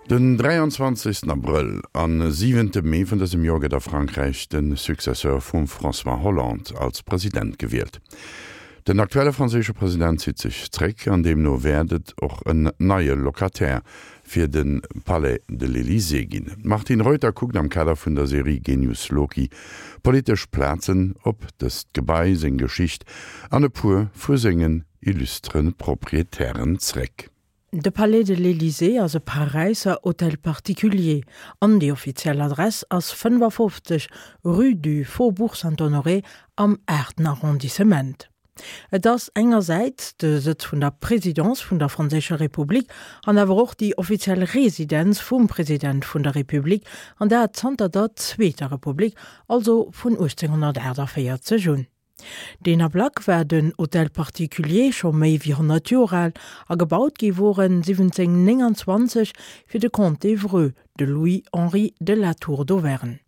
Den 23 Abrëll an siwente Mee vun dësem Joer gëtt a Frankräich de Successeur vum François Hollande als President gewielt. Den aktuelle franséische President zitt sech zréck an deemno wäert et och en neie Locataire fir de Palais de l'Elysée ginn. D'Martine Reuter kuckt am Kader vun der Serie Genius Loci politesch Plazen op dëst Gebai, seng Geschicht an e puer vu sengen illustre Proprietären zréck. De Palais de l'Elysée ass e Paräisser Hôtel particulier an déi offiziell Adress ass 55, rue du Faubourg Saint-Honoré am aachten Arrondissement. Et ass engersäits de Sëtz vun der Presidence vun der Franséischer Republik an awer och déi offiziell Residenz vum President vun der Republik, an dat zanter der Zweeter Republik, also vun 1848 un. Deen Ablack war den Hôtel particulier scho méi wéi 100 Joer al a gebaut gi wor en 1729 fir de Comte d'Evreux, de Louis-Henri de La Tour d'Auvergne.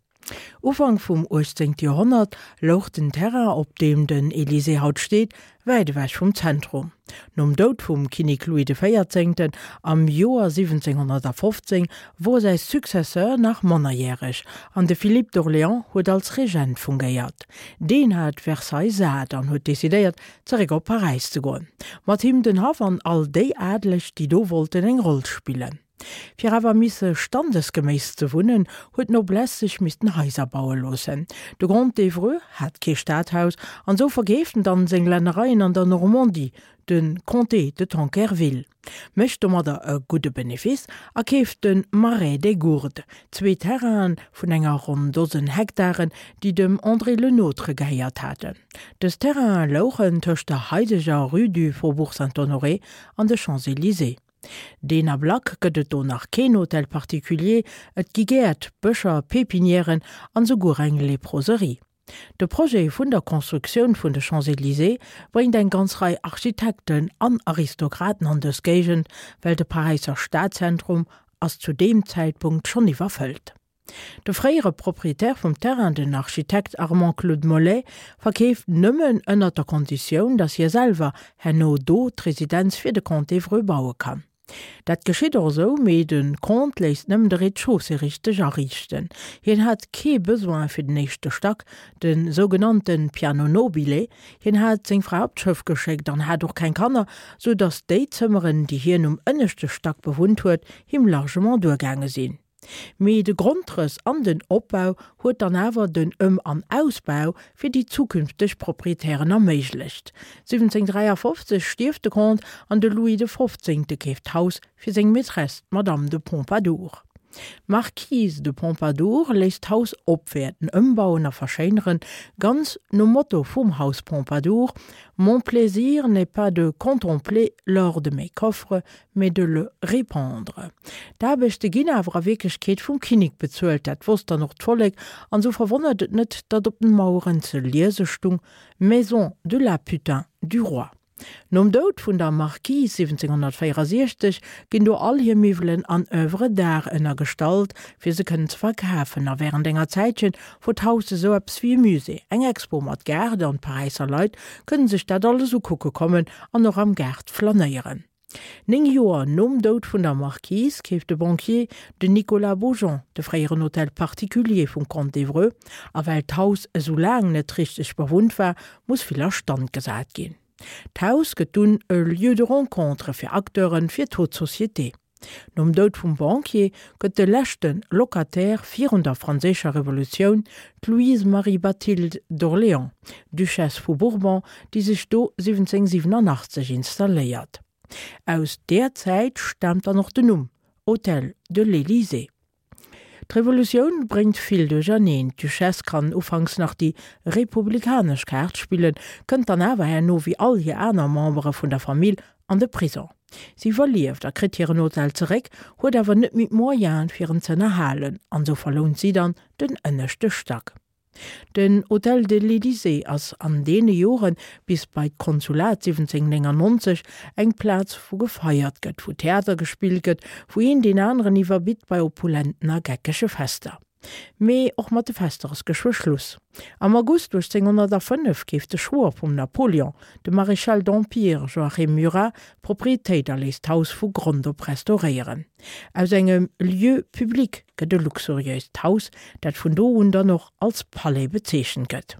Ufank vum 18. Joerhonnert louch den Terrain, op deem den Elysée haut steet, wäit ewech vum Zentrum. Nom Doud vum Kinnek Louis de Véierzéngten am Joer 1715 wor säi Successeur nach mannerjäreg an de Philippe d'Orléans huet als Regent fungéiert. Deen hat Versailles sat an huet decidéiert, zeréck op Paräis ze goen. Mat him den Haff an all déi Adeleg, déi do wollten eng Roll spillen. Fir awer misse standesgeméiss ze wunnen, huet d'Noblesse sech missten Haiser baue loossen. De Comte d'Evreux hat kee Stadhaus an sou verkeeft en dann seng Lännereien an der Normandie, de Comté de Tankerville, mécht domadder e gudde Benefice a keeft de Marais des Gourdes, zwee Terrainen vun enger ronn Dosen Hektaren, déi dem André Le Nôtre gehéiert haten. Dës Terrainen louchen tëscht der haideger Rue du Faubourg Saint-Honoré an de Champs-Élysées. Deen Ablack gëtt et do nach keen Hôtel particulier, et gi Gäert, Bëscher, Pépinièren an souguer eng Léproserie. De Projet vun der Constructioun vun de Champs-Élysées bréngt eng ganz Rei Architekten an Aristokraten an dës Géigend, well de Paräisser Stadzentrum ass zu deem Zäitpunkt schonn iwwerfëllt. De fréiere Proprietär vum Terrain, den Architekt Armand-Claude Mollet, verkeeft nëmmen ënnert der Konditioun, datt hie selwer herno do d'Residenz fir de Comte d'Evreux baue kann. Dat geschitt och esou, mee de Comte léisst nëmmen de Rez-de-chaussée richteg ariichten. Hien hat kee Besoin fir den éischte Stack, de sougenannte Piano nobile. Hien hat seng Fra op d'Schëff geschéckt an hat och keng Kanner, sou datt déi Zëmmeren, déi hien um ënneschte Stack bewunnt huet, him largement duergaange sinn. Mee de Grondrëss an den Opbau huet dann awer den Ëm an Ausbau fir déi zukünfteg Proprietären erméiglecht. 1753 stierft de Comte an de Louis de Fofzéngte keeft d'Haus fir seng Maîtresse, d'Madame de Pompadour. D'Marquise de Pompadour léisst d'Haus opwäerten, ëmbauen a verschéineren, ganz nom Motto vum Haus Pompadour, Mon plaisir n'est pas de contempler l'or de mes coffres, mais de le répandre. D'Aarbechte ginn awer a Wierklechkeet vum Kinnek bezuelt, dat wosst dann och d'Vollek, an sou verwonnert et net, datt op den Maueren ze liese stung, Maison de la putain du roi. Nom Doud vun der Marquise 1764 ginn do all hir Miwwelen an Oeuvres d'art ënnergestallt, fir se kënnen ze verkafen, a wärend enger Zäitchen wor d'Haus esou eppes wéi e Musée, eng Expo mat Gaart, an d'Paräisser Leit kënnen sech dat alles ukucke kommen an och am Gaart flanéieren. Néng Joer nom Doud vun der Marquise keeft de Banquier, den Nicolas Beaujon, de fréieren Hôtel particulier vum Comte d'Evreux, a well d'Haus esou laang net richteg bewunnt war, muss vill a Stand gesat ginn. D'Haus gëtt dunn e Lieu de rencontre fir Acteuren, fir d'Haute Société. Nom Doud vum Banquier gëtt de leschte Locataire virun der Franséischer Revolutioun d'Louise Marie Bathilde d'Orléans, Duchesse vu Bourbon, déi sech do 1787 installéiert. Aus där Zäit staamt dann och den Numm Hôtel de l'Élysée. D'Revolutioun bréngt vill duercherneen. D'Duchesse kann ufanks nach déi republikanesch Kaart spillen, kënnt dann awer herno wéi all hir aner Membere vun der Famill an de Prison. Si iwwerlieft a kritt hiren Hotel zeréck, huet awer net méi d'Moyene fir en z'ënnerhalen an sou verlount si dann den ënneschte Stack. Den Hôtel de l'Élysée ass an deene Joren, bis bei d'Konsulat 1799, eng Plaz wou gefeiert gëtt, wou Theater gespillt gëtt, wou een deen aneren iwwerbitt bei opulenten a geckege Fester. Mee och mat de Fester ass geschwë Schluss. Am August 1805 keeft de Schwoer vum Napoleon, de Maréchal d'Empire Joachim Murat, d'Proprietéit a léisst d'Haus vu Grond op restauréieren. Aus engem Lieu public gëtt e luxuriéist Haus, dat vun do un dann och als Palais bezeechent gëtt.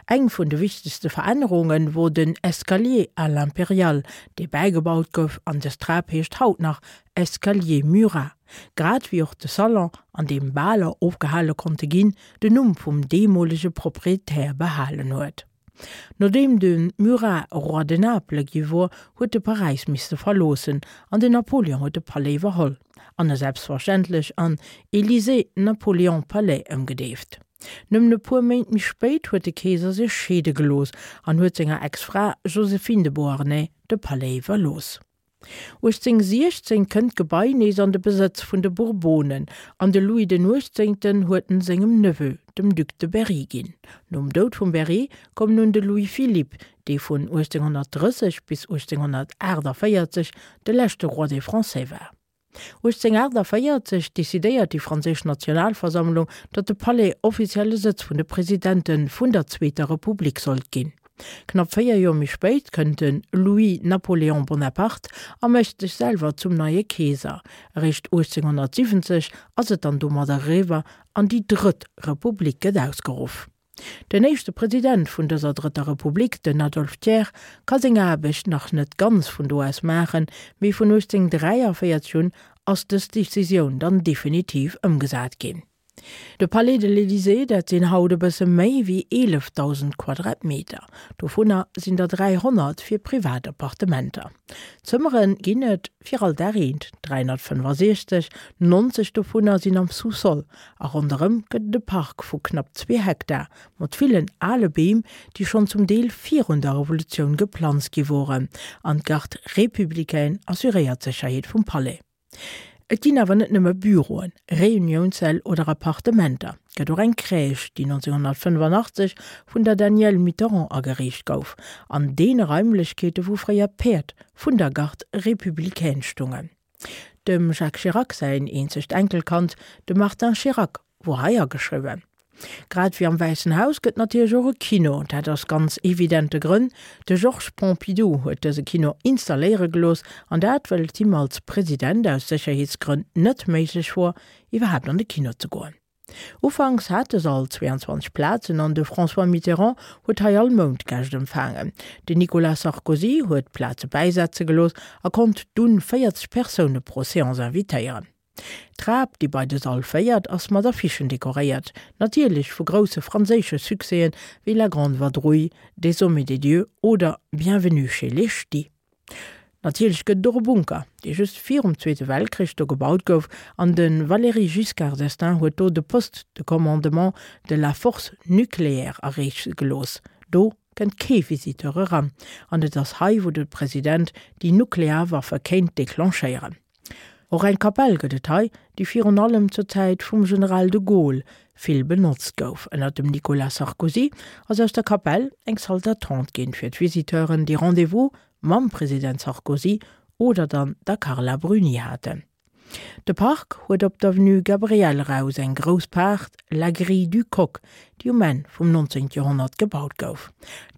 Eng vun de wichtegste Verännerunge wor den Escalier à l'impériale, dee bäigebaut gouf, an dës Trap heescht haut nach Escalier Murat. Grad wéi och de Salon, an deem Baler ofgehale konnte ginn, den Numm vum deemolege Proprietär behalen huet. Nodeem de Murat Roi de Naples gi wor, huet e Paräis misste verloossen an den Napoleon huet de Palais iwwerholl an e selbstverständlech an Élysée-Napoléon-Palais ëmgedeeft. Nëmmen e puer Méint méi spéit huet de Keeser sech scheede gelooss an huet senger Ex-Fra Joséphine de Beauharnais de Palais iwwerlooss. 1816 kënnt d'Gebai nees an de Besëtz vun de Bourbonen an de Louis den Uechtzéngten huet en sengem Neveu, dem Duc de Berry ginn. Nom Doud vum Berry koum nun de Louis-Philippe, dee vun 1830 bis 1848 de leschte Roi des Français war. 1848 decidéiert déi franséisch Nationalversammlung, datt de Palais offizielle Sëtz vun de Presidente vun der Zweeter Republik sollt ginn. Knapp 4 Joer méi spéit kënnt de Louis Napoléon Bonaparte a mécht sech selwer zum neie Keeser. Eréischt 1870 ass et dann domadder eriwwer an déi Drëtt Republik gëtt ausgeruff. Den éischte President vun dëser Drëtter Republik, den Adolphe Thiers, ka seng Aarbecht nach net ganz vun do aus maachen, mee vun 1843 un ass dës Decisioun dann definitiv ëmgesat ginn. De Palais de l'Élysée, dat sinn haut e bësse méi wéi 11.000 Quadratmeter. Dovunner sinn der 300 fir privat Appartementer. Zëmmere ginn et fir all Dag eent, 365, 90 dovunner sinn am Sous-sol. A ronderëm gëtt et e Park vu knapp zwee Hektar, mat villen ale Beem, déi schonn zum Deel virun der Revolutioun geplanzt gi woren. An d'Garde républicaine assuréiert d'Sécherheet vum Palais. Et ginn awer net nëmme Büroen, Reuniounssäll oder Appartementer. Et gëtt och eng Crèche, déi 1985 vun der Danielle Mitterrand ageriicht gouf, an deene Raimlechkeete wou fréier d'Päerd vun der Garde républicaine stungen. Dem Jacques Chirac säin eenzegt Enkelkand, de Martin Chirac, wor hei ageschriwwen. Grad wéi am Wäissen Haus gëtt natierlech och e Kino, dat aus ganz evidente Grënn. De Georges Pompidou huet dëse Kino installéiere gelooss, an dat well et him als President aus Sécherheetsgrënn net méiglech wor, iwwerhaapt an de Kino ze goen. Ufanks hat de Sall 22 Plazen an de François Mitterrand huet hei all Mount Gäscht empfaangen. Den Nicolas Sarkozy huet Plaze bäisetze gelooss a konnt dunn 40 Persoune pro Seance invitéieren. D'Trap, déi bei de Sall féiert, ass mat Affichen dekoréiert, natierlech vu grousse franséische Succèsen wéi La Grande Vadrouille, Des hommes et des dieux oder Bienvenue chez les Ch'tis. Natierlech gëtt et och e Bunker, dee just virum Zweete Weltkrich do gebaut gouf, an de Valéry Giscard d'Estaing huet do de Poste de commandement de la force nucléaire ariichte gelooss. Do kënnt kee Visiteur eran, an et ass hei, wou de President déi nuklear Waffe kéint declenchéieren. Och eng Kapell gëtt et hei, déi virun allem zur Zäit vum General de Gaulle vill benotzt gouf. Ënner dem Nicolas Sarkozy ass aus der Kapell eng Salle d'attente ginn, fir d'Visiteuren, déi Rendez-vous mam President Sarkozy oder dann der Carla Bruni haten. De Park huet op d'Avenue Gabriel eraus eng grouss Paart, la Grille du Coq, déi um Enn vum 19. Joerhonnert gebaut gouf.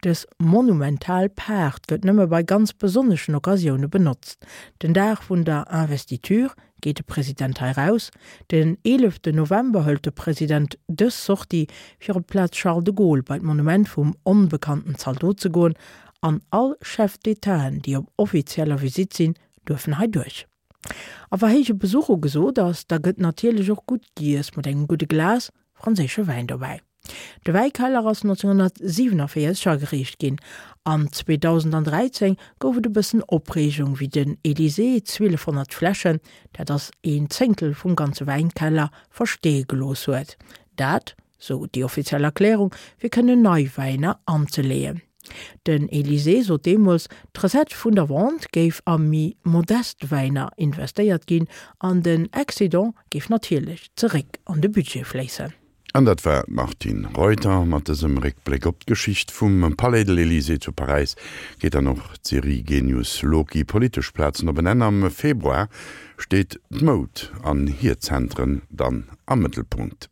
Dës monumental Paart gëtt nëmme bei ganz besonneschen Occasioune benotzt. Den Dag vun der Investiture geet de President hei raus. Den 11 November hëlt de President dës Sortie, fir op d'Plaz Charles de Gaulle bei d'Monument vum onbekannten Zaldot ze goen, an all Chef d'Étaten, déi op offizieller Visitt sinn, duerfen hei duerch. A wa héije Besuch ugesot ass, da gëtt natierlech och gutt giess mat engem gudde Glas franséische Wäin dobäi. De Wäikeller ass 1947 ageriicht ginn an 2013 gouf et e bëssen Opreegung, wéi den Elysée 1200 Fläschen, dat ass een Zéngtel vum ganze Wäinkeller, versteeë gelooss huet. Dat, sou déi offiziell Erklärung, fir kënnen nei Wäiner anzeleeën. Den Elysée sot deemools, d'Recette vun der Vente géif a méi modest Wäiner investéiert ginn an den Excédent géif natierlech zeréck an de Budget fléissen. An dat war d'Martine Reuter. Mat dësem Réckbléck op d'Geschicht vum Palais de l'Elysée zu Paräis geet dann och d'Serie Genius Loci, Politesch Plazen op en Enn. Am Februar steet d'Moud an hir Zentren dann am Mëttelpunkt.